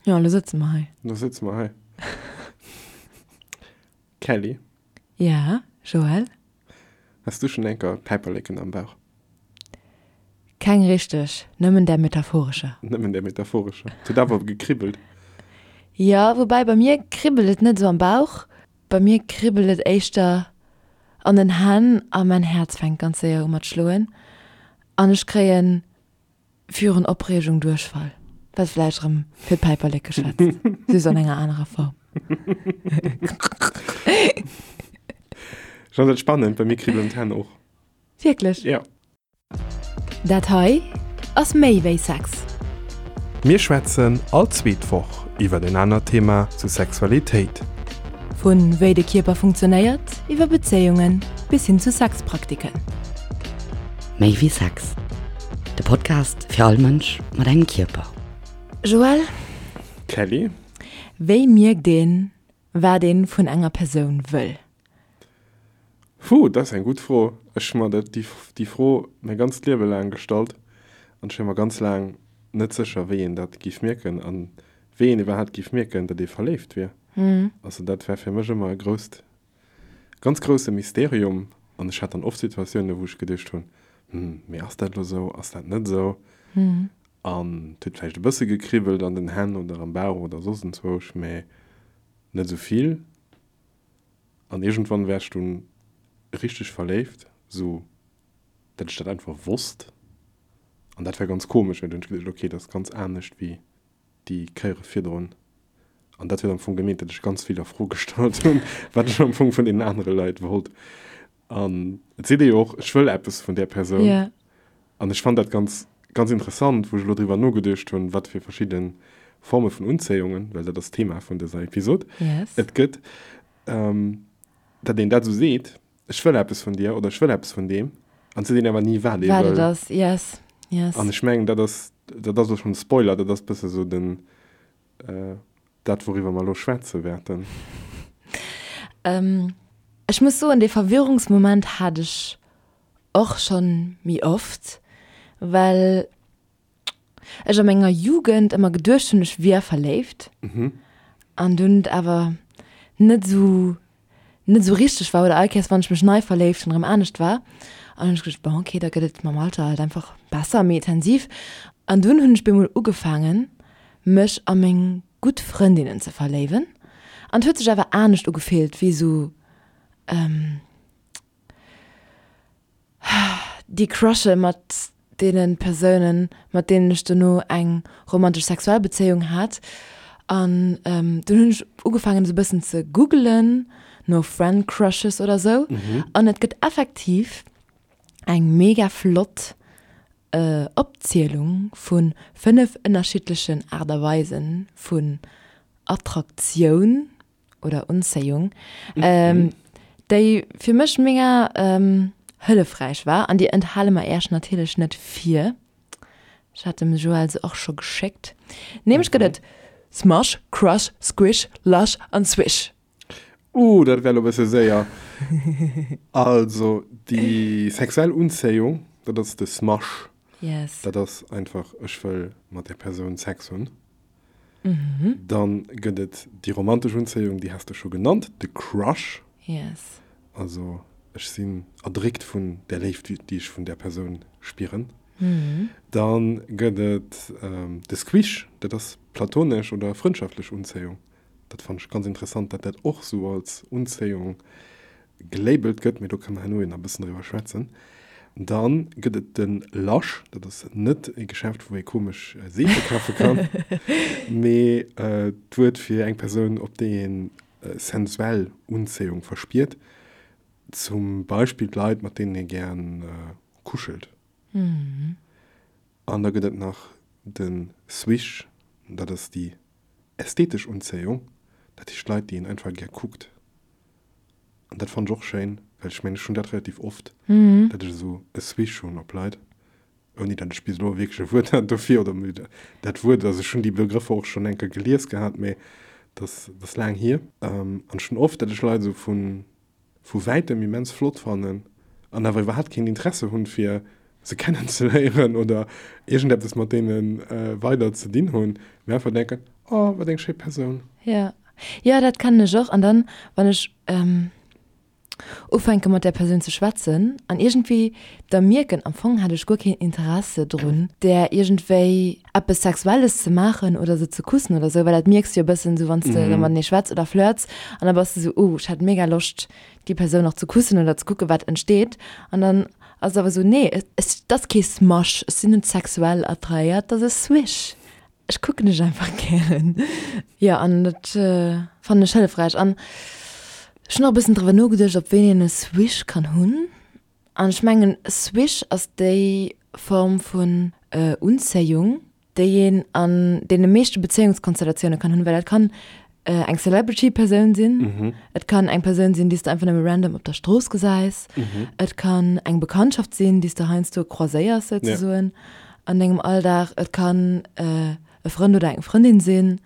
Jo, elo sëtze mer hei. Elo sëtze mer hei. Kelly? Ja, Joël? Has du schonn enker Päiperleken am Bauch? Keng richteg, nëmmen där metaphorescher. Nëmmen där metaphorescher. Et huet awer gekribbelt. Jo, woubäi bei mir kribbelt et net esou am Bauch, bei mir kribbelt et éischter an den Hänn a mäin Häerz fänkt ganz séier u mat schloen an ech kréien virun Opreegung Duerchfall, wat vläicht erëm fir d'Päiperleke schwätzt, just an enger anerer Form. Ech fannen dat spannend, bei mir kribbelen d'Hänn och. Wierklech? Jo. Dat hei ass méi wéi Sex. Mir schwätzen all zweet Woch iwwer en anert Thema zu Sexualitéit. Vu wéi de Kierper funktionéiert, iwwer Bezéiungen bis hin zu Sexpraktiken. Méi wéi Sex, de Podcast fir all Mënsch mat engem Kierper. Joël? Kelly? Wéi mierkt een, wat een vun enger Persoun wëll? Puh, dat ass eng gutt Fro. Ech hu mer dat, déi Fro mäi ganzt Liewe laang gestallt an ech war mer ganz laang net sécher, wéi een dat géif mierken an wéi een iwwerhaapt géif mierken, datt ee verléift wier. Also dat war fir mech ëmmer e grousst, ganz grousse Mysterium an ech hat dann oft Situatiounen, wou ech geduecht hunn, Hm, mee ass dat elo esou, ass dat net esou? An et huet vläicht e bësse gekribbelt an den Hänn oder am Bauch oder soss enzwousch, mee net esou vill. An iergendwann war ech dunn richteg verléift, sou dat ech dat einfach wosst. An dat war ganz komesch, well dunn hunn ech geduecht, ok, dat ass ganz anescht wéi déi Kéiere virdrun. An dat huet am Fong gemeent, datt ech ganz vill a Fro gestallt hunn, wat ech am Fong vun deenen anere Leit wollt. An et seet ee jo och, ech wëll eppes vun där Persoun. Yeah. An ech fannt dat ganz, ganz interessant, wou ech elo driwwer nogeduecht hunn, wat fir verschidde Forme vun Unzéiungen, well dat ass d'Thema vun dëser Episod, Yes. et gëtt, datt een dat esou seet, ech wëll eppes vun dir oder ech wëll eppes vun deem, an et seet een awer ni, wat ee Wat et wëll. ass, yes, yes. An ech mengen, dat ass, dat ass elo schonn e Spoiler, dat ass e bësse sou den, dat, wouriwwer mer elo schwätze wäerten. Ech muss soen, dee Verwirrungsmoment hat ech och schonn méi oft, well ech a menger Jugend ëmmer geduecht hunn, ech wier verléift an dunn et awer net esou net esou richteg war oder all Kéiers wann ech mech nei verléift hunn erëm anescht war. An hunn ech geduecht, bon okay, da gëtt et mam Alter halt einfach besser, méi intensiv. An dunn hunn ech bemol ugefaangen mech a meng gutt Frëndinnen ze verléiwen an et huet sech awer anescht ugefillt wéi esou Déi Crushe mat deene Persounen, mat deenen ech dono eng romantesch sexuell Bezéiung hat. An dunn hunn ech ugefaangen esou e bëssen ze googelen no Friend Crushes oder esou. An et gëtt effektiv eng mega flott Opzielung vu 5 ënnerschiddlechen Aart a Weise vun Attraktioun. oder Unzéiung, déi fir mech mega hëllefräich war an déi enthale mer Äech natierlech net vir. Ech hat dem Joël se och scho geschéckt. Nämlech gëtt et Smush, Crush, Squish, Lush an Swish. Uh, dat war elo e bësse séier. Also déi sexuell Unzéiung, dat ass de Smush. Yes. Dat ass einfach, ech wëll mat där Persoun Sex hunn. Dann gëtt et déi romantesch Unzéiung, déi has de scho genannt, de Crush. Yes. Also ech sinn erdréckt vun där Léift, déi ech vun där Persoun spieren. Dann gëtt et de Squish, dat ass platonesch oder frëndschaftlech Unzéiung. Dat fannen ech ganz interessant, datt dat och sou als Unzéiung gelabelt gëtt, mee do kënne mer herno nach e bëssen driwwer schwätzen. Dann gëtt et de Lush, dat ass net e Geschäft, wou ee komesch Seefe kafe kann, mee d'Wuert fir eng Persoun, op déi een sensuell Unzéiung verspiert, zum Beispill d'Leit, mat deenen ee gär kuschelt. An da gëtt et nach de Swish, dat ass déi ästhetesch Unzéiung, dat heescht Leit, déi een einfach gär kuckt. An dat fannen ech och schéin, well ech mengen, ech hunn dat relativ oft, datt ech esou e Swish hunn op Leit, ouni datt ech bis elo wierklech e Wuert hat dofir oder mir dat Wuert, also ech hunn déi Begrëffer och schonn eng Kéier gelies gehat, mee dat ass, dat ass laang hier. An ech hunn oft, datt ech Leit esou vu vu wäitem immens flott fannen an awer iwwerhaapt keen Interesse hunn, fir se kennenzeléieren oder iergendeppes mat deene weider ze dinn hunn, mee einfach denken, Oh. Oh, wat eng schéi Persoun. Ja. Jo, dat kennen ech och. An dann, wann ech ufänke mat där Persoun ze schwätzen an iergendwéi da mierken, am Fong hätt ech guer keen Interesse drun, där iergendwéi eppes Sexuelles ze maachen oder se ze kussen oder sou, well dat mierks de jo e bëssen esou, wann s de da matenee schwätz oder flirts an da bass de sou, oh, ech hätt mega Loscht, déi Persoun nach ze kussen oder ze kucke wat entsteet. An dann ass et awer esou, nee, et ass kee Smash, ech sinn net sexuell attrahéiert, et ass e Swish. Ech kucken dech einfach gären. Jo, an dat fannen ech hëllefräich. An ech hunn och e bëssen driwwer nogeduecht, op wéini een e Swish kann hunn. An ech mengen, e Swish ass déi Form vun Unzéiung, déi een an deene meeschte Bezéiungskonstellatioune kann hunn, well dat kann eng Celebrity-Persoun sinn, et kann eng Persoun sinn, déi s de einfach nëmme random op der Strooss gesäis, et kann eng Bekanntschaft sinn, déi s de heiansdo croiséiers souzesoen an dengem Alldag, et kann e Frënd oder eng Frëndin sinn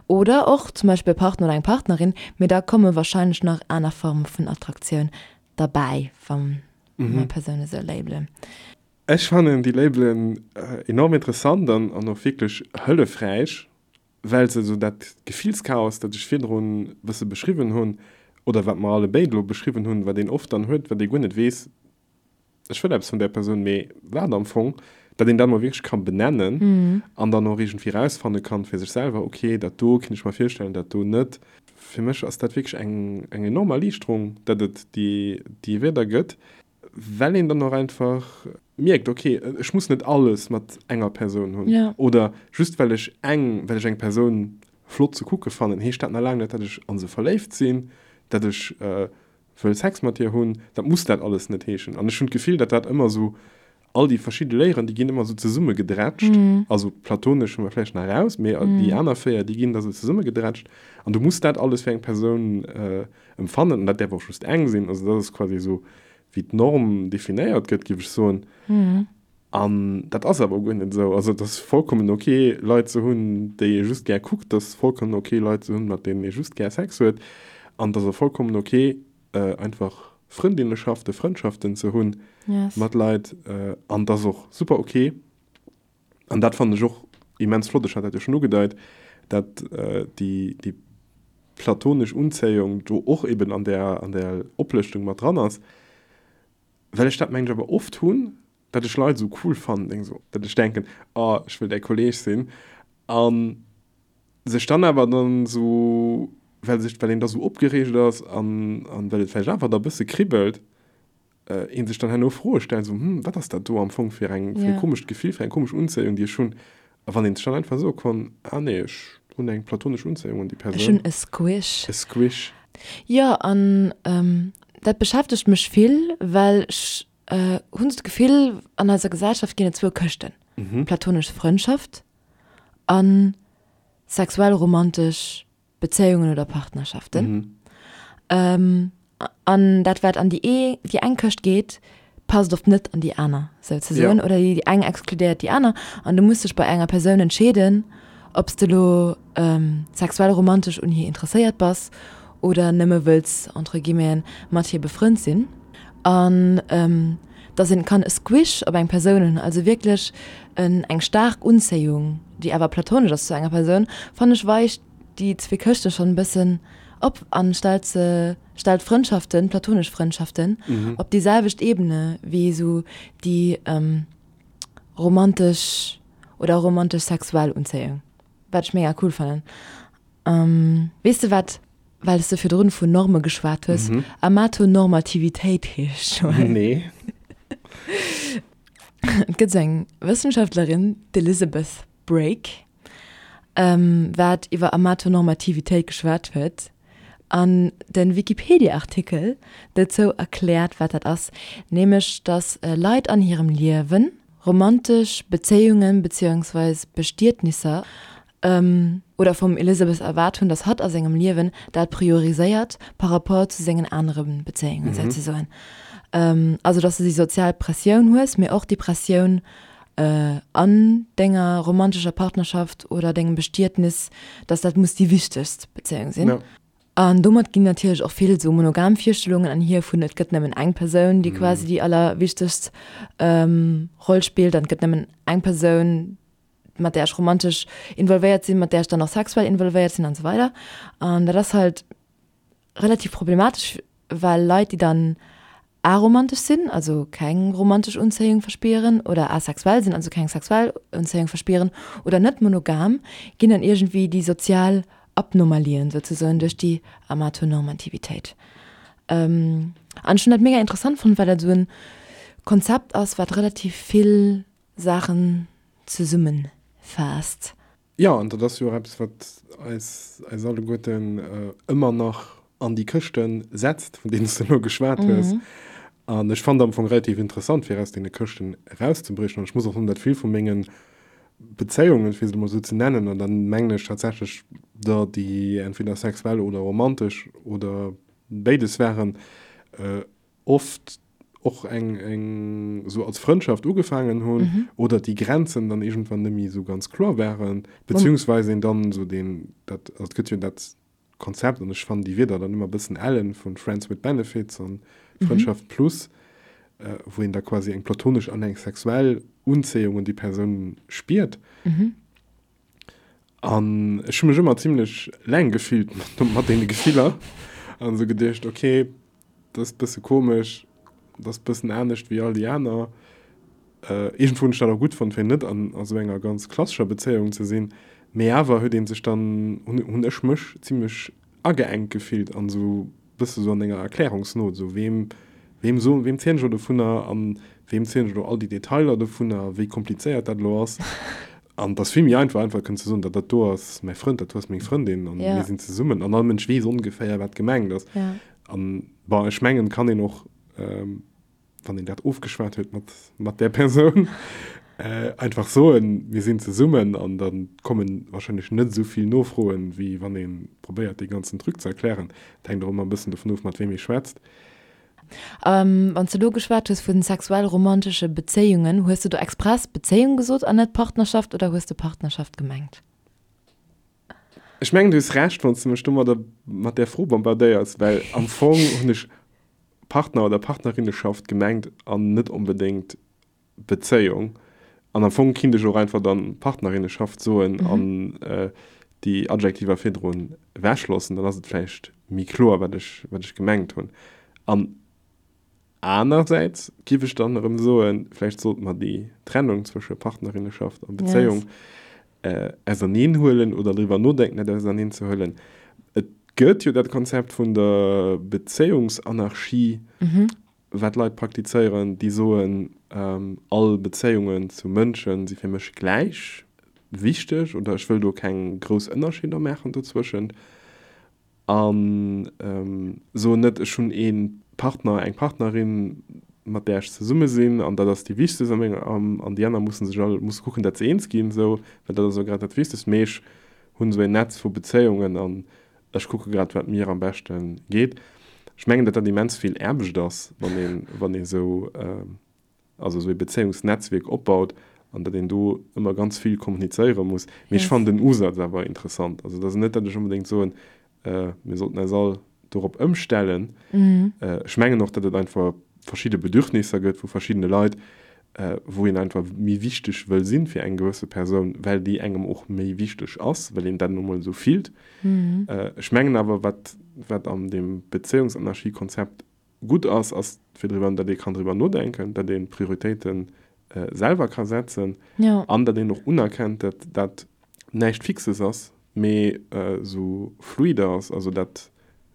oder och zum Beispill e Partner oder eng Partnerin, mee da komme warscheinlech nach aner Forme vun Attraktioun derbäi, wa mer Persoune sou labelen. Ech fannen déi Labelen enorm interessant an an och wierklech hëllefräich, well se esou dat Gefillschaos, dat ech virdrun e bësse beschriwwen hunn, oder wat mer alle béid elo beschriwwen hunn, wat een oft dann huet, wat ee guer net weess, ech wëll eppes vun där Persoun, mee wat am Fong, dat een dat mol wierklech ka benennen an dann och iergendwéi erausfanne kann fir sech selwer, ok, dat do kinnt ech mer virstellen, dat do net. Fir mech ass dat wierklech eng eng enorm Erliichterung, dat et déi déi Wierder gëtt. Well een dann och einfach mierkt, ok, ech muss net alles mat enger Persoun hunn. Ja. Oder just well ech eng, well ech eng Persoun flott ze kucke fannen, heescht dat nach laang net, datt ech a se verléift sinn, datt ech wëll Sex mat hir hunn. Dat muss dat alles net heeschen. An ech hunn d'Gefill, datt dat ëmmer esou, all déi verschidde Léieren, déi ginn ëmmer esou zesummegedrätscht. Also platonesch hu mer vläicht nach eraus, mee déi aner 4, déi ginn da sou zesummegedrätscht. An du muss dat alles fir eng Persoun Empfannen, an dat däerf och just eng sinn, also dat ass quasi esou wéi d'Norm definéiert gëtt, géif ech soen. An dat ass awer guer net esou. Also et ass vollkommen ok Leit ze hunn, déi ee just gär kuckt, et ass vollkommen ok Leit ze hunn, mat deenen ee just gär Sex huet, an et ass och vollkommen ok einfach Frëndinneschaften, Frëndschaften ze hunn mat Leit, an et ass och super ok, An dat fannen ech och immens flott, ech hat dat jo schonn ugedeit, dat déi, déi platonesch Unzéiung do och eben an där, an där Oplëschtung mat dran ass, well ech dat mengen ech awer oft hunn, dat ech Leit esou cool fannen, deng esou, dat ech denken, oh ech wëll däi Kolleg sinn, a sech dann awer dann esou, well sech, well een da esou opgereegt ass an, an well et vläicht einfach da e bësse kribbelt, een sech dann herno Froe stellt, esou, hm, wat ass dat do am Fong fir eng, fir e komescht Gefill, fir eng komesch Unzéiung, déi ech hunn. A wann een sech dann einfach soe konnt, ah nee, ech hunn eng platonesch Unzéiung un déi Persoun. Ech hunn e Squish. E Squish. Jo, an dat beschäftegt mech vill, well ech hunn esou d'Gefill, an eiser Gesellschaft ginn et zwou Këschten, platonesch Frëndschaft a sexuell romantesch Bezéiungen oder Partnerschaften. Mhm. An dat wat an déi ee déi eng Këscht geet, passt oft net an déi aner souzesoen. Ja. Oder déi eng exkludéiert déi aner. An du muss dech bei enger Persoun entscheeden, ob s de lo ähm, sexuell romantesch un hir interesséiert bass oder nëmme wëlls entre guillemeten mat hir befrënnt sinn. An ähm, dass een kann e Squish op eng Persoun hunn, also wierklech en eng staark Unzéiung, déi awer platonesch ass zu enger Persoun, fannen ech weicht déi zwee Këschte schonn e bëssen op an stellt se, stellt Frëndschaften, platonesch Frëndschaften op déi selwecht Ebene wéi esou déi romantesch oder romantesch-sexuell Unzéiung, wat ech mega cool fannen. Weess de wat, well s de virdrun vun Norme geschwat hues, Amatonormativitéit heescht, Joël? Nee. Et gëtt esou eng Wëssenschaftlerin, d'Elizabeth Brake, wat iwwer Amatonormativitéit geschwat huet an de Wikipedia-Artikel dozou erkläert, wat dat ass, nämlech datt Leit an hirem Liewen romantesch Bezéiungen beziéungsweis Bestietnisser oder vum Elizabeth erwaart hunn, datt hatt a sengem Liewen dat prioriséiert par rapport zu sengen anere Bezéiungen souzesoen. Also datt s de déi sozial Pressioun hues, mee och déi Pressioun an denger romantescher Partnerschaft oder dengem Bestietnis, datt dat muss déi wichtegst Bezéiung sinn. An domat ginn natierlech och vill esou monogam Virstellungen anhier vun et gëtt nëmmen eng Persoun, déi quasi déi allerwichtegst Roll spillt an et gëtt nëmmen eng Persoun, mat där ech romantesch involvéiert sinn, mat där ech dann och sexuell involvéiert sinn an esou weider. An dat ass halt relativ problematesch, well Leit, déi dann aromantesch sinn, also keng romantesch Unzéiung verspieren, oder asexuell sinn, also keng sexuell Unzéiung verspieren, oder net monogam, ginn dann iergendwéi déi sozial Abnormalien souzesoen duerch déi Amatonormativitéit. An ech hunn dat mega interessant fonnt, well dat esou en Konzept ass, wat relativ vill Saachen zesummenfaasst. Jo, an dat ass jo och eppes, wat eis, eis alleguerten ëmmer nach an déi Këschte setzt, vun deenen s de elo geschwat hues. An ech fannen am Fong relativ interessant, fir aus deene Këschten erauszebriechen. An ech muss och soen, datt vill vu menge Bezéiungen, fir se emol esou ze nennen, an da mengen ech tatsächlech der, déi entweder sexuell oder romantesch oder béides waren, oft och eng eng esou als Frëndschaft ugefaangen hunn oder déi Grenzen dann iergendwann net méi esou ganz kloer waren, beziehungsweise een dann esou deen, dat, also et gëtt jo dat Konzept, an ech fannen déi Wierder dann ëmmer e bëssen ellen, vu Friends with Benefits an Frëndschaft plus, wou een da quasi eng platonesch an eng sexuell Unzéiung un déi Persoun spiert. An ech hu mech ëmmer zimlech eleng gefillt mat deene Gefiller an esou geduecht, ok, dat ass e bësse komesch, dat ass e bëssen anescht wéi all déi aner. Iergendwou hunn ech dat och gutt fonnt, fir net an esou enger ganz klassescher Bezéiung ze sinn, mee awer huet ee sech dann, hunn ech mech zimlech ageengt gefillt an esou bësse sou an enger Erklärungsnot, esou weem, weem soen, weem zielen ech elo dovunner an weem zielen ech elo all déi Detailer dovunner, wéi komplizéiert dat elo ass. An et ass vill méi einfach, einfach kënnen ze soen, dat dat do ass mäi Frënd, dat do ass meng Frëndin an mir sinn zesummen an all Mënsch weess ongeféier, wat gemengt ass. An bon, ech mengen, et kann een och, wann een dat ofgeschwat huet mat, mat där Persoun, einfach soen, mir sinn zesummen an da komme wahrscheinlech net esou vill Nofroen, wéi wann ee probéiert, dee ganzen Truc ze erklären. Et hänkt och ëmmer e bëssen dovun of, mat weem ee schwätzt. Wann s de elo geschwat hues vu sexuell-romantesche Bezéiungen, hues de do express Bezéiung gesot an net Partnerschaft oder hues de Partnerschaft gemengt? Ech mengen, du hues Recht, wann s de mech domadder mat där Fro bombardéiers, well am Fong hunn ech Partner oder Partnerinneschaft gemengt an net onbedéngt Bezéiung. An am Fong kinnt ech och einfach dann Partnerinneschaft soen an déi Adjektiver virdrun ewechloossen, dann ass et vläicht méi kloer, wat ech, wat ech gemengt hunn. An anersäits giff ech dann erëm soen, vläicht sollte mer déi Trennung zwësche Partnerinneschaft a Bezéiung auserneen huelen oder driwwer nodenken, dat auserneen ze huelen. Et gëtt jo dat Konzept vun der Bezéiungsanarchie, wat Leit praktizéieren, déi soen, all Bezéiungen zu Mënsche si fir mech gläich wichteg oder ech wëll do keng grouss Ënnerscheeder maachen dozwëschent. A soen net, ech hunn ee Partner, eng Partnerin, mat där ech zesumme sinn an dat ass déi wichtegst a menger, an déi aner musse sech all, musse kucken, dat se eens ginn, esou, well dat ass elo grad dat Wichtegst. Mee ech hunn esou een Netz vu Bezéiungen an ech kucke grad, wat mir am beschte geet. Ech mengen, datt dat immens vill Aarbecht ass, wann een, wann ee sou, also esou ee Bezéiungsnetzwierk opbaut an datt een do ëmmer ganz vill kommunizéiere muss. Mee ech fannen den Usaz awer interessant. Also et ass net, datt ech onbedéngt soen, mir sollten eis all dorop ëmstellen. Ech mengen och, datt et einfach verschidde Bedürfnisser gëtt vu verschiddene Leit, wou een einfach méi wichteg wëll sinn fir eng gewësse Persoun, well déi engem och méi wichteg ass, well een dat nu mol esou fillt. Ech mengen awer, wat, wat an deem Bezéiungsanarchie-Konzept gutt ass, ass fir driwwer, datt ee kann driwwer nodenken, datt ee Prioritéite selwer ka setzen an datt een och unerkennt, datt dat näischt Fixes ass, mee esou fluide ass. Also dat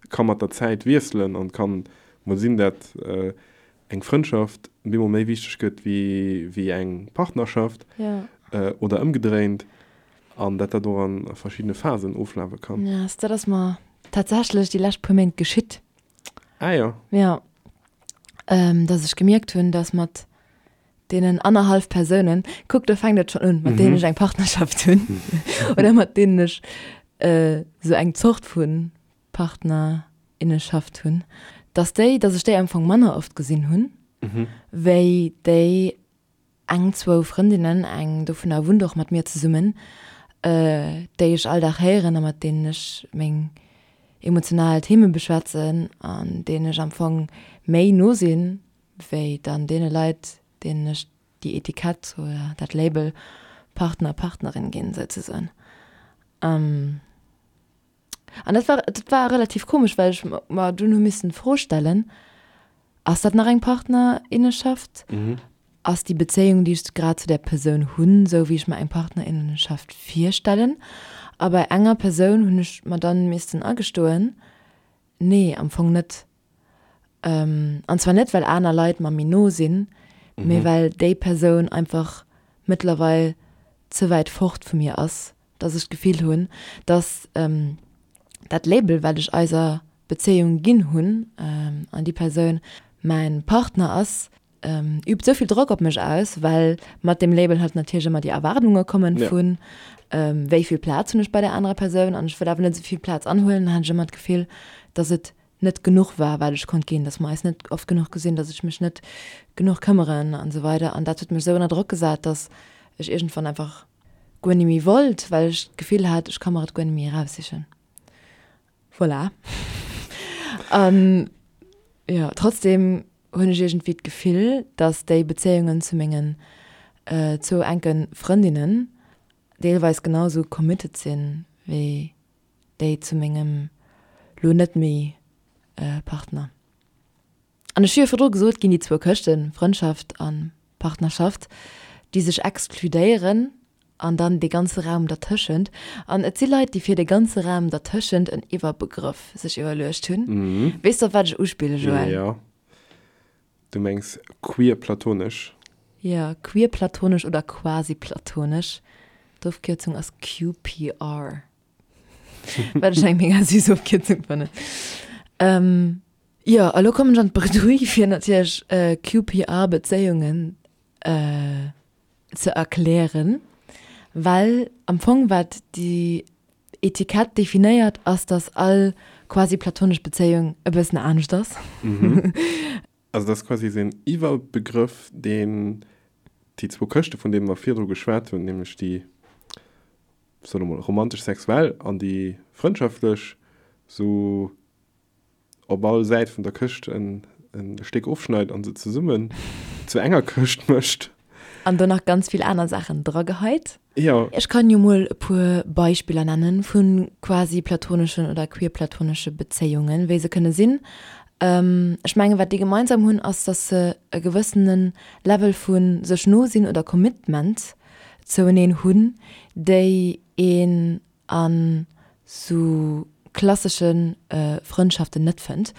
ka mat der Zäit wiesselen an et kann mol sinn, datt eng Frëndschaft bemol méi wichteg gëtt wéi eng Partnerschaft oder ëmgedréint an datt dat och a verschiddene Phasen oflafe kann. Dat ass mer tatsächlech déi lescht puer Méint geschitt. Ah jo. Ja. Ähm, dass ech gemierkt hunn, dass mat deenen annerhallf Persounen, kuck, do fänkt et schonn un, mat deenen ech eng Partnerschaft hunn oder mat deenen ech äh, sou eng Zort vu Partnerinneschaft hunn, dass déi, dass ech déi am Fong manner oft gesinn hunn, wéi déi Eng, zwou Frëndinnen, eng dovunner wunnt och mat mir zesummen, déi ech all Dag héieren a mat deenen ech meng emotional Theme beschwätzen an deenen ech am Fong méi no sinn, wéi dann deene Leit, deenen ech déi Etikett oder dat Label. Partner, Partnerin ginn, souzesoen. An dat war, dat war relativ komesch, well ech mer dunn hu missen d'Fro stellen, Ass dat nach eng Partnerinneschaft? Ass déi Bezéiung, déi ech grad zu där Persoun hunn, esou wéi ech mer eng Partnerinnenschaft virstellen? A bei enger Persoun hunn ech mer dann missten agestoen, Nee, am Fong net. An zwar net, well aner Leit mer méi no sinn, mee well déi Persoun einfach mëttlerweil ze wäit fort vu mir ass, dass ech d'Gefill hunn, dass dat Label, wat ech eiser Bezéiung ginn hunn, an déi Persoun mäin Partner ass, übt esou vill Drock op mech aus, well mat deem Label halt natierlech ëmmer déi Erwaardunge kommen vun, wéi vill Plaz hunn ech bei där anerer Persoun an ech wëll awer net esou vill Plaz anhuelen. Dann hat ech ëmmer d'Gefill, dass et net genuch war, wat ech konnt ginn, dass mer eis net oft genuch gesinn, dass ech mech net genuch këmmeren an esou weider. An dat huet mech esou ënner Drock gesat, dass ech iergendwann einfach guer ni méi wollt, well ech d'Gefill hat, ech ka mer et guer net méi eraussichen. Voilà. An jo, trotzdem hunn ech iergendwéi d'Gefill, dass déi Bezéiungen zu mengen zwou enke Frëndinnen deelweis genau esou committed sinn, wéi déi zu mengem lo net méi Partner. An ech hu jo virdru gesot, ginn déi zwou Këschten, Frëndschaft a Partnerschaft, déi sech exkludéieren an dann dee ganze Raum dertëschent. An et si Leit, déi fir dee ganze Raum dertëschent en Iwwerbegrëff sech iwwerluecht hunn. Weess de, op wat ech uspillen, Joël? Jo. Du mengs queer-platonesch? Jo, queer-platonesch oder quasi-platonesch. D'Ofkierzung ass QPR. Wat ech eng mega süß Ofkierzung fannen. Jo, a lo kommen ech an d'Bredouille, fir natierlech QPR-Bezéiungen ze erklären, well am Fong wat déi Etikett definéiert, ass, dass all quasi platonesch Bezéiung e bëssen anescht ass. Also dat ass quasi esou een Iwwerbegrëff, deen déi zwou Këschte, vun deene mer virdru geschwat hunn, nämlech déi, soe mer mol, romantesch-sexuell an déi frëndschaftlech, esou op all Säit vun der Këscht en Stéck ofschneit an se zesummen zu enger Këscht mécht. An do nach ganz vill aner Saachen drageheit. Jo. Ech kann jo mol e puer Beispiller nennen vu quasi platoneschen oder queerplatonesche Bezéiungen, wéi se kënne sinn. Ech mengen, wat déi gemeinsam hunn, ass, dass se e gewëssene Level vu sech no sinn oder Commitment zoueneen hunn, déi een an sou klassesche Frëndschaften net fënnt.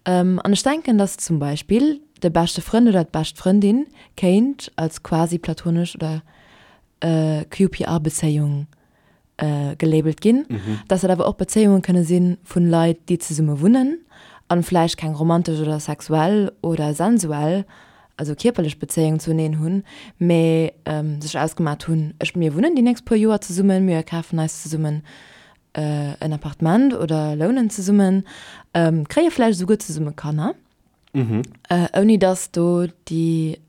An ech denken, dass zum Beispill de beschte Frënd oder d'bescht Frëndin kéint als quasi platonesch oder QPR-Bezéiung gelabelt ginn, dass dat awer och Bezéiunge kënne si vu Leit, déi zesumme wunnen an vläicht keng romantesch oder sexuell oder sensuell also kierperlech Bezéiung zueneen hunn, mä sech ausgemat hunn, ech, mir wunnen déi nächst puer Joer zesummen, mir kafen eis zesummen en Appartement oder lounen zesummen, kréie vläicht esouguer zesumme Kanner, ouni datt do déi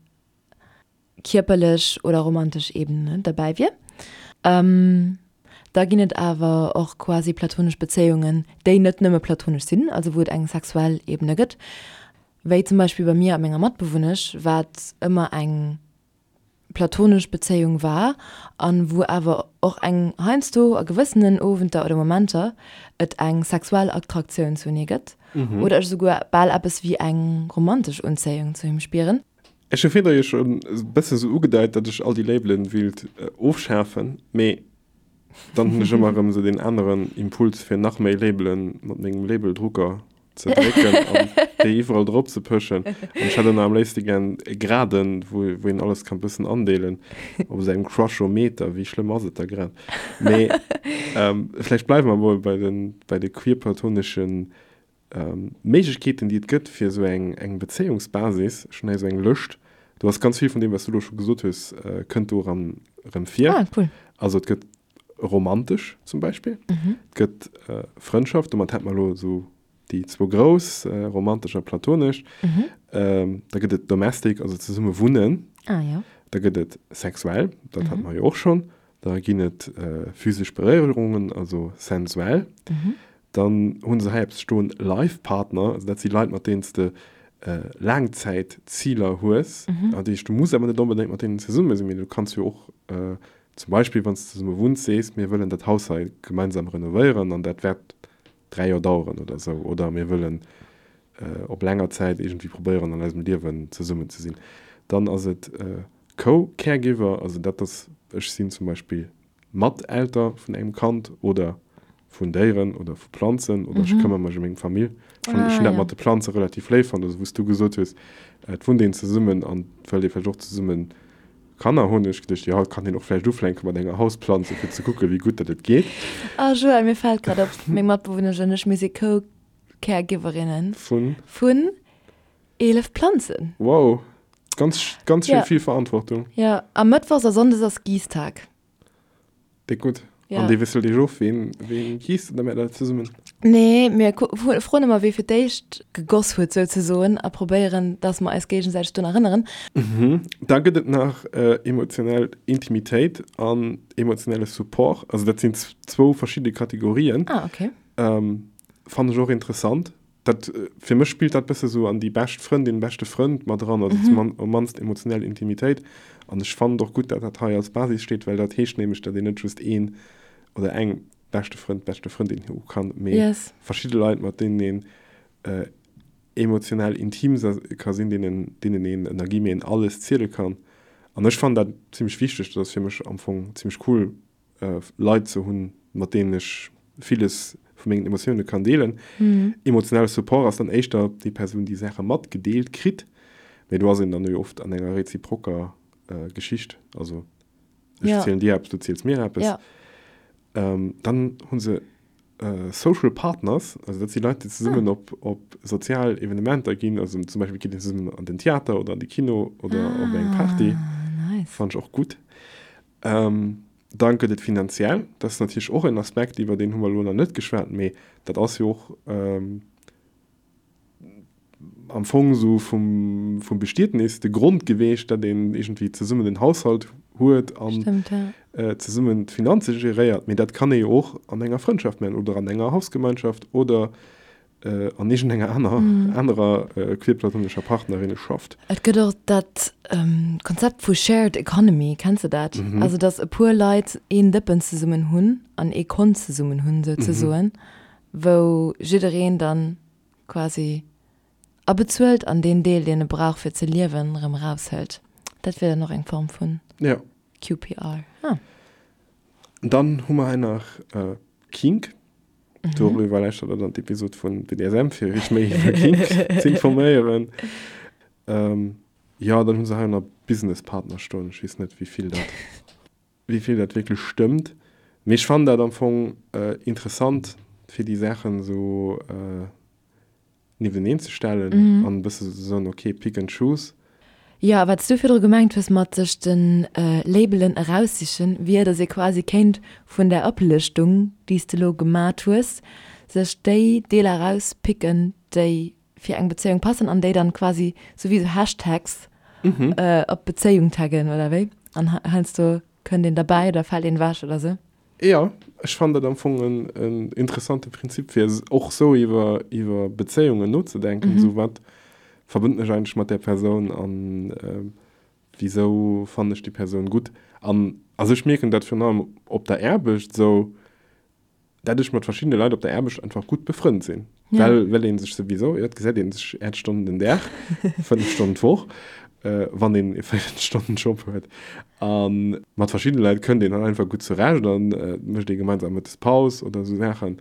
kierperlech oder romantesch Ebene derbäi wier. Da ginn et awer och quasi platonesch Bezéiungen, déi net nëmme platonesch sinn, also wou et eng sexuell Ebene gëtt. Wéi zum Beispill bei mir a menger Matbewunnesch, wat ëmmer eng platonesch Bezéiung war an wou awer och eng heiansdo a gewëssenen Owenter oder Momenter et eng sexuell Attraktioun zu hinne gëtt oder ech esouguer bal eppes wéi eng romantesch Unzéiung zu him spieren. Ech hu virdru jo schonn e bësse sou ugedeit, datt ech all déi Labelen wéilt ofschafen, mee dann hunn ech ëmmer erëm esou deen aneren Impuls fir nach méi Labelen mat mengem Labeldrucker ze drécken an déi iwwerall drop ze pëschen. An ech hätt ëmmer am léifste gären e Graden, wou wou een alles kann bëssen andeelen. Op esou engem Crushometer, wéi schlëmm ass et da grad? Mee vläicht bleiwe mer emol bei de bei de queerplatoneschen Méiglechkeeten, déi et gëtt fir esou eng eng Bezéiungsbasis. Ech hunn hei esou eng Lëscht, do ass ganz vill vun deem, wat s du elo scho gesot hues, kënnt do erëm erëm vir. Ah, cool. Also et gëtt romantesch zum Beispill. Et gëtt Frëndschaft, domat hätt mer elo esou déi zwou grouss, romantesch a platonesch. Da gëtt et domestic, also zesumme wunnen. Ah, jo. Da gëtt et sexuell, dat hat mer jo och schonn. Da ginn et physesch Beréierungen, also sensuell. Dann hu se hei eppes stoen, Life Partner, also dat si Leit, mat deenen s de Laangzäitziler hues. Dat heescht, du muss awer net onbedéngt mat deenen zesumme sinn, mee du kanns jo och. Zum Beispill, wann s de zesumme wunns, sees, mir wëllen dat Haus hei gemeinsam renovéieren an dat wäert 3 Joer daueren oder esou. Oder mir wëllen op länger Zäit iergendwéi probéieren, an eisem Liewen zesummen ze sinn. Dann ass et Co-Caregiver, also dat ass, ech sinn zum Beispill Mat-Elter vun engem Kand oder vun Déieren oder vu Planzen oder ech këmmer mech ëm meng Famill. Ech hunn, ech hunn dat mat de Planze relativ léif fonnt, also wou s du gesot hues, et wunnt een zesummen an et wëllt ee vläicht och zesummen Kanner hunn, hunn ech geduecht, jo, et kann een och vläicht ufänke mat enger Hausplanze fir ze kucke wéi gutt dat et geet. Ah Joël, mir fält grad op, meng Matbewunnesch an ech, mir si Co-Caregiverinnen Vun? vun 11 Planzen. Wow, ganz, ganz schön vill Verantwortung. Jo, a Mëttwochs a Sonndes ass Giisstag. Déck gutt. Ja. An dee wisselt Iech of, ween, ween giisst oder maacht der dat zesummen? Nee, mir froen ëmmer, wee fir d'éischt gegoss huet souzesoen a probéieren, dass mer eis géigesäiteg drun erënneren. Mhm. Da gëtt et nach emotionell Intimitéit an emotionelle Support. Also dat sinn zwou verschidde Kategorien. Ah, okay. Fannen ech och interessant. Dat, fir mech spillt dat bësse sou an déi bescht Frëndin, beschte Frënd mat eran, also zum am mannst emotionell Intimitéit. An ech fannen et och gutt, dat dat hei als Basis steet, well dat heescht nämlech, dat een net just een oder eng beschte Frënd, beschte Frëndin hu kann, mee Yes. verschidde Leit, mat deenen een emotionell intim ka sinn, deenen, deenen een ënner guillemeten alles ziele kann. An ech fannen dat zimmlech wichteg. Dat ass fir mech am Fong zimmlech cool, Leit ze hunn, mat deenen ech villes vu mengen Emotioune kann deelen. Emotionelle Support ass dann éischter déi Persoun, déi Saache matgedeelt kritt, mee do ass een dann jo oft an enger reziproker Geschicht. Also ech zielen dir eppes, du ziels mir eppes. Dann hu se Social Partners, also dat si Leit, déi zesummen op op sozial Evenementer ginn, also zum Beispill geet een zesummen an den Theater oder an de Kino oder op eng Party. Fannen ech och gutt. Dann gëtt et finanziell, dat ass natierlech och en Aspekt, iwwer deen hu mer elo nach net geschwat, mee dat ass jo och am Fong esou vum, vum Bestietnis de Grond geweecht, datt een iergendwéi zesummen en Haushalt huet an zesummen d'Finanze geréiert. Mee dat kann ee jo och an enger Frëndschaft maachen oder an enger Hausgemeinschaft oder an iergendenger aner, anerer queerplatonescher Partnerinneschaft. Et gëtt och dat Konzept vu Shared Economy, kenns de dat? Also datt e puer Leit een Dëppen zesummen hunn an ee Kont zesummen hunn souzesoen, wou jiddereen dann quasi abezuelt an deen Deel, deen e brauch fir ze liewen, erëm eraushëlt. Dat wier dann och eng Form vun QPR. Ah. Dann hu mer hei nach Kink. Doriwwer lauschtert der dann d'Episod vun BDSM, fir iech méi iwwer Kink ze informéieren. Jo, dann hu se hei nach Businesspartner stoen. Ech weess net, wéi vill dat, wéi vill dat wierklech stëmmt. Mee ech fannen dat am Fong interessant, fir déi Saachen esou niefteneen ze stellen an e bësse ze soen, ok, pick and choose. Jo, a wat s du virdru gemengt hues mat sech de Labelen eraussichen, wier, datt ee quasi kéint vun där Oplëschtung, déi s de elo gemat hues, sech déi Deeler erauspicken, déi fir eng Bezéiung passen an déi dann quasi sou wéi sou Hashtags op d'Bezéiung taggen, oder wéi? An heiansdo kënnt een derbäi oder fält een ewech oder sou. Jo, ech fannen dat am Fong en interessante Prinzip fir och sou iwwer iwwer Bezéiungen nozedenken, sou wat verbënnt mech eigentlech mat där Persoun an wisou fannen ech déi Persoun gutt. An also ech mierken dat virun allem op der Aarbecht sou, dat ech mat verschiddene Leit op der Aarbecht einfach gutt befrënnt sinn, well well ee sech souwisou, jo et gesäit ee sech 8 Stonnen den Dag, 5 Stonnen d'Woch, wann een e 40 Stonnen Job huet. A mat verschiddene Leit kënnt een dann einfach gutt zurecht an et mécht ee gemeinsam Mëttes Paus oder esou Saachen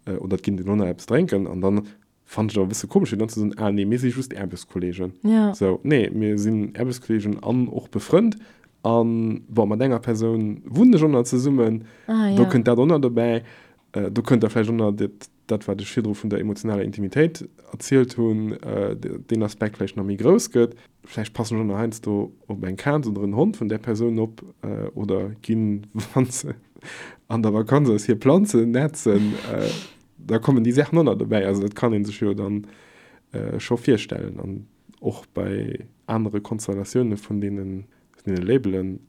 oder et ginn een och nach eppes drénken an dann fannen ech et awer e bësse komesch fir dann ze soen, ah nee, mir si just Aarbechtskolleegen. Sou, nee, mir sinn Aarbechtskolleegen an och befrënnt an bon, mat enger Persoun wunnen ech och nach zesummen, do kënnt dat och nach dobäi, do kënnt da vläicht och nach dat dat wat ech virdru vun der emotionaler Intimitéit erzielt hunn, deen Aspekt vläicht nach méi grouss gëtt. Vläicht passen ech och nach heiansdo op eng Kaz oder en Hond vun där Persoun op oder ginn, wa se an der Vakanz ass, hir Planzen nätzen. Da kommen déi Saachen och nach dobäi. Also dat kann ee sech jo dann scho virstellen. An och bei anere Konstellatioune vun deene Labelen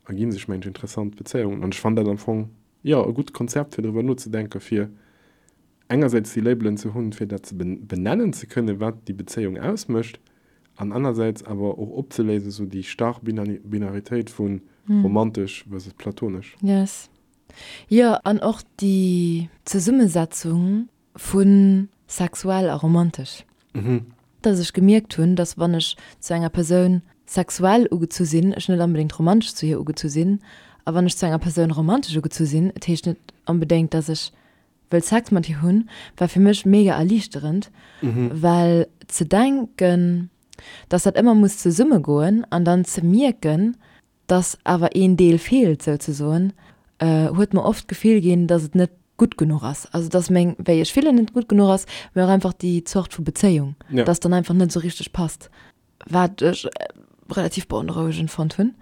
ergi sech, mengen ech, interessant Bezéiungen. An ech fannen dat am Fong Jo, e gutt Konzept fir driwwer nozedenken, fir engersäits déi Labelen ze hunn, fir dat ze benennen ze kënnen, wat déi Bezéiung ausmécht. An anersäits awer och opzeléisen, esou déi starr Binaritéit vu romantesch versus platonesch. Yes. Jo, an och déi Zesummesetzung vu sexuell a romantesch. Dass ech gemierkt hunn, dass wann ech zu enger Persoun sexuell ugezu sinn, ech net onbedéngt romantesch zu hir ugezu sinn. A wann ech zu enger Persoun romantesch ugezu sinn, et heescht net onbedéngt, dass ech wëll Sex mat hir hunn, war fir mech mega erliichterend, well ze denken, dass dat ëmmer muss zesummegoen an dann ze mierken, dass awer een Deel feelt souzesoen, huet mer oft d'Gefill ginn, dass et net gutt genuch ass. Also dass meng, wéi ech fillen, net gutt genuch ass, mee och einfach déi Zort vu Bezéiung, dass dann einfach net esou richteg passt. Wat ech relativ beonrouegend fonnt hunn.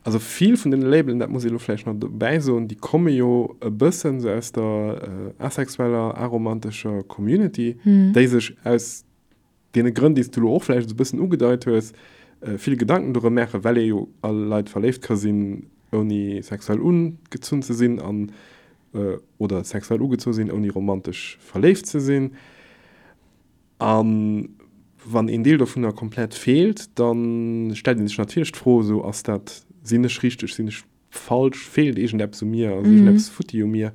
Also vill vun deene Labelen, dat muss ee lo vläicht nach dobäi soen, déi komme jo e bëssen esou aus der asexueller, aromantescher Community, déi sech aus deene Grënn, déi s du lo och vläicht esou e bëssen ugedeit hues, vill Gedanken dorëm maachen, well ee jo a Leit verléift ka sinn, ouni sexuell ugezunn ze sinn an, oder sexuell ugezu sinn, ouni romantesch verléift ze sinn. A wann een Deel dovunner komplett feelt, da stellt ee sech natierlech d'Fro, esou, ass dat, sinn ech richteg, sinn ech falsch, feelt iergendeppes u mir, ass iergendeppes futti u mir?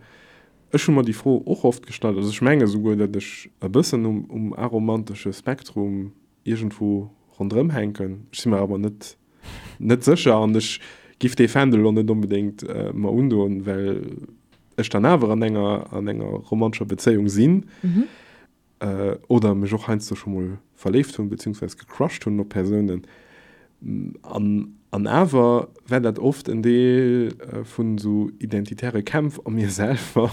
Ech hu mer déi Fro och oft gestallt. Also ech menge souguer, datt ech e bëssen um aromantesche Spektrum iergendwou ronderëm hänken. Ech si mer awer net net sécher an ech giff dee Fändel elo net onbedéngt mer undoen, well ech dann awer an enger an enger romantescher Bezéiung sinn. Oder mech och heiansdo scho mol verléift hunn, beziehungsweise gecrushed hunn op Persounen. An, an awer war dat oft en Deel vun esou identitäre Kämpf a mir selwer.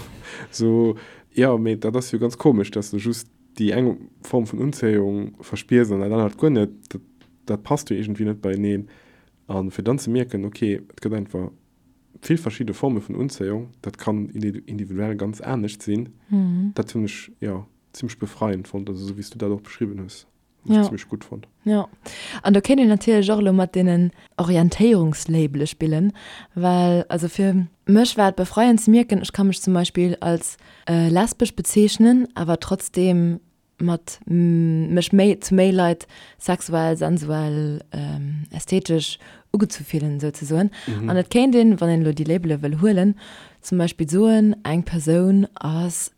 Esou, jo, mee dat ass jo ganz komesch, dass de just déi eng Form vun Unzéiung verspiers an dat anert guer net. Dat, dat passt jo iergendwéi net beieneen. A fir dann ze mierken, okay, et gëtt einfach vill verschidde Forme vun Unzéiung, dat kann individuell ganz anescht sinn, dat hunn ech, jo, zimmlech befreiend fonnt, also esou wéi s du dat och beschriwwen hues, hunn ech zimmlech gutt fonnt. Jo, an do kéint een natierlech och elo mat deenen Orientéierungslabele spillen, well also fir mech war et befreiend ze mierken, ech ka mech zum Beispill als lesbesch bezeechnen, awer trotzdeem mat mech méi zu méi Leit sexuell, sensuell, ästhetesch ugezu fillen souzesoen. An et kéint een, wann een elo déi Labele wëll huelen, zum Beispill soen, eng Persoun ass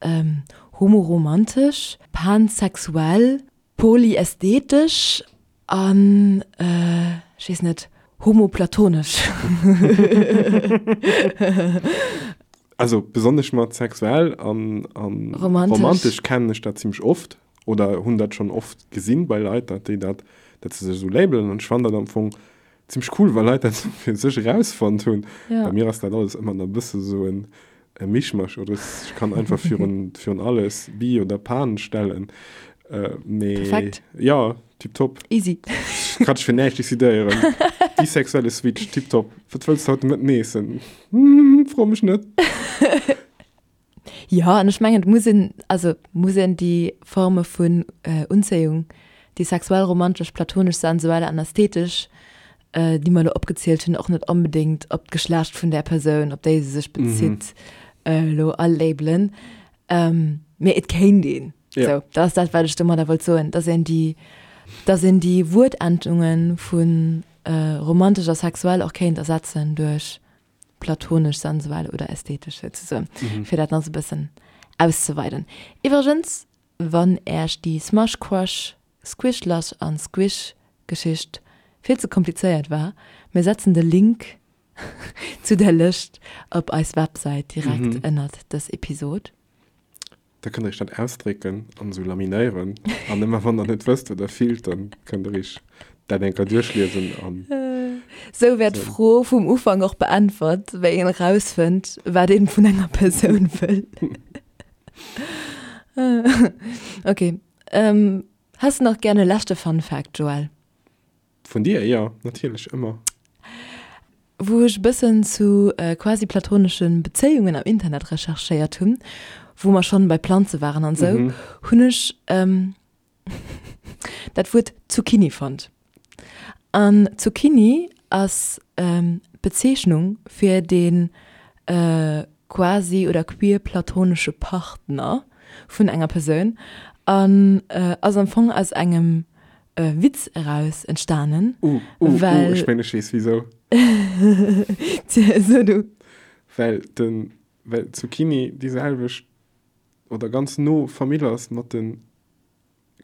homoromantesch, pansexuell, polyästhetesch an, ech weess net, homoplatonesch. Also besonnesch mat sexuell an, an romantesch. romantesch kennen ech dat zimmlech oft oder hunn dat schonn oft gesinn bei Leit, dat déi dat, dat se sech esou labelen an ech fannen dat am Fong zimmlech cool, wa Leit dat esou fir sech erausfonnt hunn. Ja. Bei mir ass dat alles ëmmer nach e bësse sou en e Mischmasch oder ech kann einfach virun, virun alles bi oder pan stellen. Äh, mee Perfekt. Ja, tiptop. Easy. Kann ech fir näischt decidéieren. Bisexuelle Switch, tiptop. Wat wëlls du haut de Mëtten eessen? Hm, fro mech net. Jo, an ech mengen, et muss een, also muss een déi Forme vun Unzéiung, déi sexuell, romantesch, platonesch, sensuell an ästhetesch, déi mer elo opgezielt hunn, och net onbedéngt op d'Geschlecht vun där Persoun, op déi se sech bezitt, elo alabelen. Mee et kéint een. Ja. Sou, dat ass dat, wat ech domadder wollt soen, dass een déi, dass een déi Wuertendunge vu romantesch a sexuell och kéint ersetzen duerch platonesch, sensuell oder ästhetesch souzesoen, fir dat nach esou e bëssen auszeweiden. Iwwregens, wann Äech déi Smush Crush, Squish Lush an Squish Geschicht vill ze komplizéiert war, mir setzen de Link zu der Lëscht op eis Websäit direkt ënnert dës Episod. Da kënnt der iech dat ausdrécken an esou laminéieren an ëmmer wann der net wësst wat der fillt, dann kënnt der iech dat eng Kéier duerchliesen an. Sou wär d'Fro vum Ufank och beäntwert, wéi een erausfënnt, wat een vun enger Persoun wëll. Ok, häss de nach gär e leschte Fun Fact, Joël? Vun dir? Jo, natierlech, ëmmer. Wou ech e bëssen zu quasi platonesche Bezéiungen am Internet recherchéiert hunn, wou mer schonn bei Planze waren an esou, hunn ech dat Wuert Zucchini fonnt. An Zucchini ass d'Bezeechnung fir dee quasi oder queer-platonesche Partner vun enger Persoun an ass am Fong aus engem. Witz eraus entstanen. Uh, uh, uh, well ech mengen ech weess wisou. So du. Well den, well Zucchini déi selwecht oder ganz no Famill ass mat den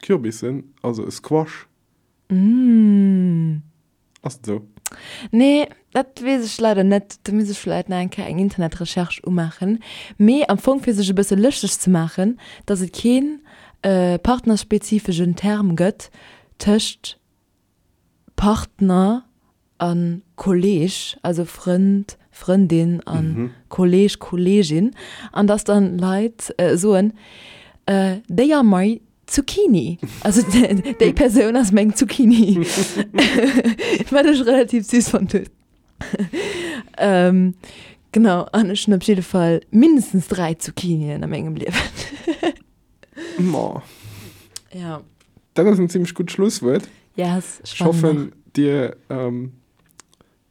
Kürbissen, also e Squash. Mm. Ass et esou? Nee, dat weess ech leider net. Do misst ech vläit nach eng Kéier eng Internetrecherche umaachen. Mee am Fong fir sech e bësse lëschteg ze maachen, datt et keen partnerspezifegen Term gëtt tëscht Partner a Kolleeg, also Frënd, Frëndin a Kolleeg, Kolleegin, an datt dann Leit soen, They are my Zucchini. Also déi Persoun ass meng Zucchini. Wat ech relativ süß fonnt hunn. Ähm, genau, an ech hunn op jidde Fall mindestens 3 Zucchinien a mengem Liewen. Ma. Ja. Dat ass en zimmlech gutt Schlusswuert. Yes, ech hoffen, dir ähm,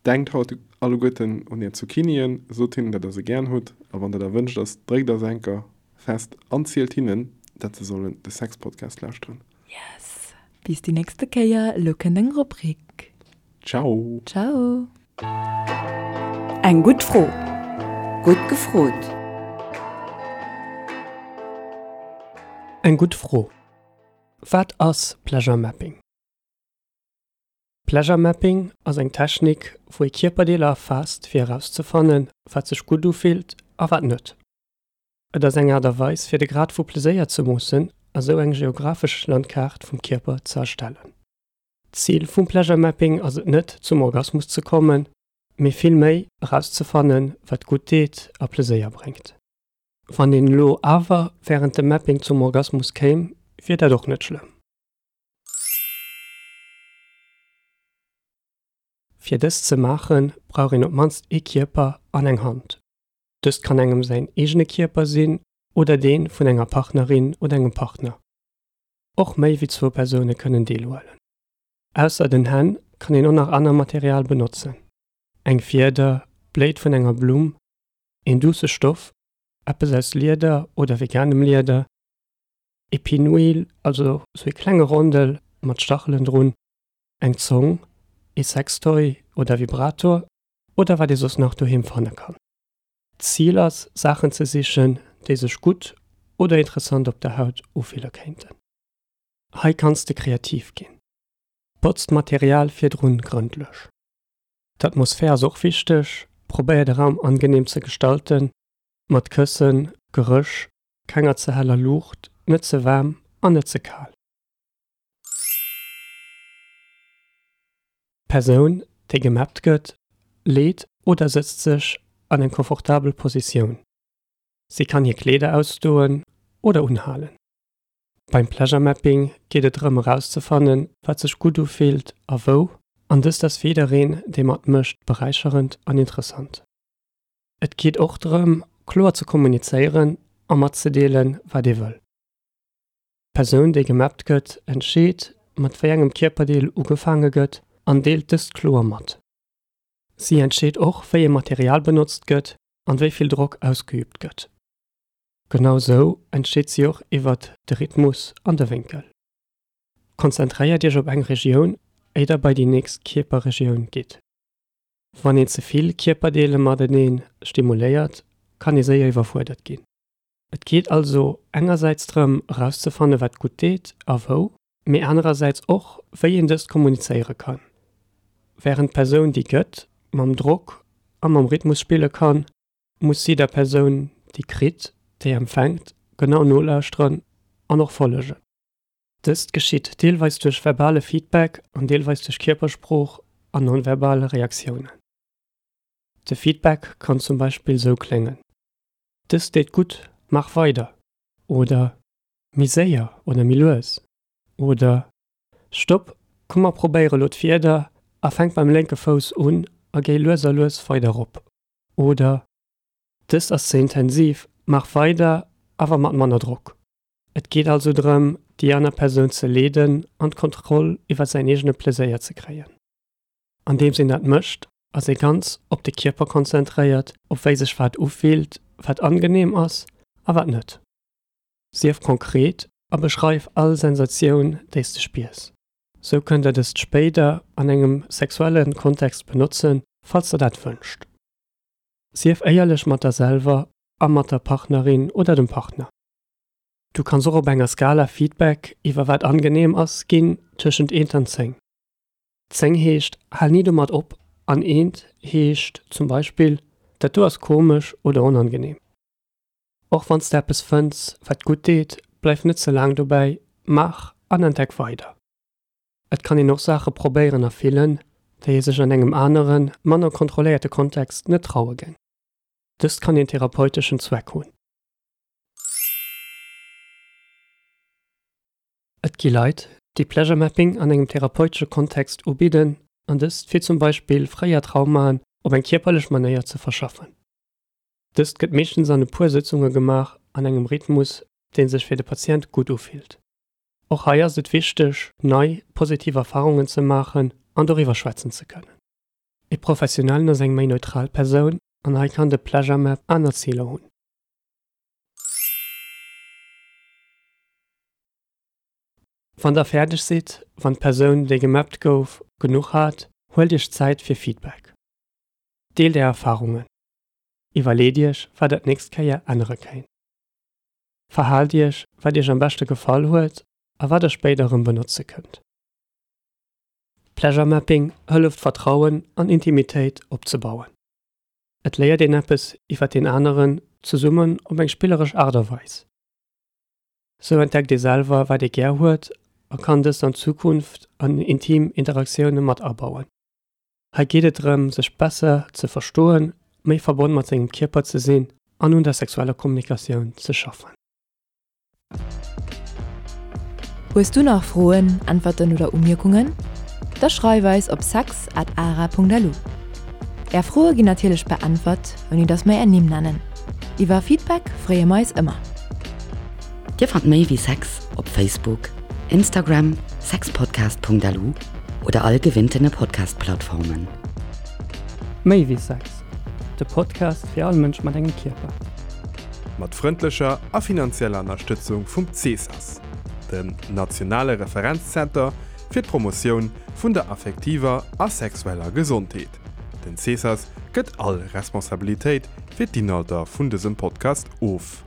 denkt haut alleguerten un är Zucchinien, sot hinnen, dat der se gären hutt, a wann dat erwënscht ass, dréckt eis enker fest an zielt hinnen, dat se sollen de Sex-Podcast lauschteren. Yes! Bis déi nächste Kéier, elo kënnt eng Rubrik. Ciao! Ciao! Eng gutt Fro, gutt gefrot! Eng gutt Fro, Wat ass Pleasure Mapping? Pleasure Mapping ass eng Technik, wou ee Kierperdeeler erfaasst fir erauszefannen, wat sech gutt ufillt a wat net. Et ass eng Aart a Weis fir de Grad vu Pleséier ze moossen a sou eng geographesch Landkaart vum Kierper ze erstellen. D'Zil vum Pleasure Mapping ass et net zum Orgasmus ze kommen, mee vill méi erauszefannen, wat gutt deet a Pleséier bréngt. Wann een elo awer wärend dem Mapping zum Orgasmus kéim, wier dat och net schlëmm. Fir dëst ze maachen, brauch een op d'mannst ee Kierper an eng Hand. Dëst kann engem säin eegene Kierper sinn oder dee vun enger Partnerin oder engem Partner. Och méi wéi zwou Persoune kënnen deelhuelen. Ausser den Hänn kann een och nach aner Material benotzen, eng Fieder, d'Bléit vun enger Blumm, een duusse Stoff, eppes aus Lieder oder veganem Lieder, Ee Pinwheel, also sou ee klenge Rondel mat Stachelen drun, eng Zong, ee Sextoy oder Vibrator oder wat ee soss nach doheem fanne kann. D'Zil ass Saachen ze sichen, déi sech gutt oder interessant op der Haut ufille kéinten. Hei kanns de kreativ ginn. Botz d'Material virdrun grëndlech. D'Atmosphär ass och wichteg, probéier de Raum angeneem ze gestalten, mat Këssen, Geréch kenger ze heller Luucht, net ze waarm an net ze kal. D'Persoun, déi gemappt gëtt, leet oder sëtzt sech an eng komfortabel Positioun. Si kann hir Kleeder ausdoen oder unhalen. Beim Pleasure Mapping geet et drëm erauszefannen, wat sech gutt ufillt a wou, an dëst ass fir jiddereen, dee matmécht, beräicherend an interessant. Et geet och drëm, kloer ze kommunizéieren a matzedeelen, wat ee wëll. D'Persoun, déi gemappt gëtt, entscheet, mat wéi engem Kierperdeel ugefaange gëtt an deelt dëst kloer mat. Si entscheet och, wéi ee Material benotzt gëtt an wéi vill Drock ausgeüübt gëtt. Genau sou entscheet si och iwwert de Rhythmus an de Wénkel. Konzentréiert Iech op eng Regioun, éier der bei déi nächst Kierperregioun gitt. Wann een ze vill Kierperdeele matenee stimuléiert, kann ee séier iwwerfuerdert ginn. Et geet also engersäits drëm erauszefanne wat gutt deet a wou, mee anerersäits och wéi een dëst kommunizéiere kann. Wärend d'Persoun déi gëtt mam Drock a mam Rhythmus spille kann, muss si der Persoun déi kritt, déi empfänkt, genau nolauschteren an och follegen. Dëst geschitt deelweis duerch verbale Feedback an deelweis duerch Kierpersprooch an non-verbal Reaktiounen. De Feedback kann zum Beispill sou kléngen, Dëst deet gutt, maach weider! oder Méi séier oder méi lues oder Stopp, komm mer probéiere lo d'Fieder a fänk beim lénke Fouss un a géi lues a lues weider rop oder Dëst ass ze intensiv, maach weider, awer mat manner Drock. Et geet also drëm, déi aner Persoun ze leeden an d'Kontroll iwwer säin eegene Pleséier ze kréien. Andeems een dat mécht, ass ee ganz op de Kierper konzentréiert, op wéi sech wat ufillt, wat angeneem ass a wat net. Sief konkret a beschreif all Sensatioun, déi s de spiers. Sou kënnt der dëst spéider an engem sexuelle Kontext benotzen, falls der dat wënscht. Sief éierlech mat der selwer a mat der Partnerin oder dem Partner. Du kanns och op enger Skala Feedback iwwer wat angeneem ass ginn, tëschent eent an 10. 10 heescht hal ni domat op an eent heescht zum Beispill dat do ass komesch oder onangeneem. Och wann s de eppes fënns, wat gutt deet, bleif net ze laang dobäi, maach an entdeck weider. Et kann een och Saache probéieren a fillen, déi ee sech an engem aneren, manner kontrolléierte Kontext net traue géing. Dëst kann een therapeuteschen Zweck hunn. Et gi Leit, déi Pleasure Mapping an engem therapeutesche Kontext ubidden, an dëst fir zum Beispill fréier Traumaen op eng kierperlech Manéier ze verschaffen. Dëst gëtt meeschtens an e puer Sëtzunge gemaach an engem Rhythmus, dee sech fir de Patient gutt ufillt. Och hei ass et wichteg, nei, positiv Erfarungen ze maachen an doriwwer schwätzen ze kënnen. E Professionellen ass eng méi neutral Persoun an hei kann de Pleasure Map aner Ziler hunn. Wann der fäerdeg sidd, wann d'Persoun, déi gemappt gouf, genuch hat, huelt iech Zäit fir Feedback. Deelt är Erfarungen. Iwwerleet iech, wat der d'nächst Kéier ännere kéint. Verhaalt iech, wat iech am beschte gefall huet a wat der spéider erëm benotze kënnt. Pleasure Mapping hëlleft Vertrauen an Intimitéit opzebauen. Et léiert een eppes iwwer deen aneren, zesummen op eng spilleresch Aart a Weis. Sou entdeckt ee selwer, wat ee gär huet a kann dëst an Zukunft an intim Interaktioune mat abauen. Hei geet et drëm, sech besser ze verstoen, méi verbonn mat sengem Kierper ze sinn an un der sexueller Kommunikatioun ze schaffen. Hues du nach Froen, Äntwerten oder Umierkungen? Da schreif eis op sex at ara.lu. Är Froe ginn natierlech beäntwert, ouni dass mer är Nimm nennen. Iwwer Feedback freeë mer eis ëmmer. Dir fannt méi wéi Sex op Facebook, Instagram, sexpodcast.lu oder all gewinntene Podcast-Plattformen. Méi wéi Sex, de Podcast fir all Mënsch mat engem Kierper. Mat frëndlecher a finanzieller Ënnerstëtzung vum CESAS, dem nationale Referenzzenter fir d'Promotioun vun der affektiver a sexueller Gesondheet. Den CESAS gëtt all Responsabilitéit fir d'Inhalter vun dësem Podcast of.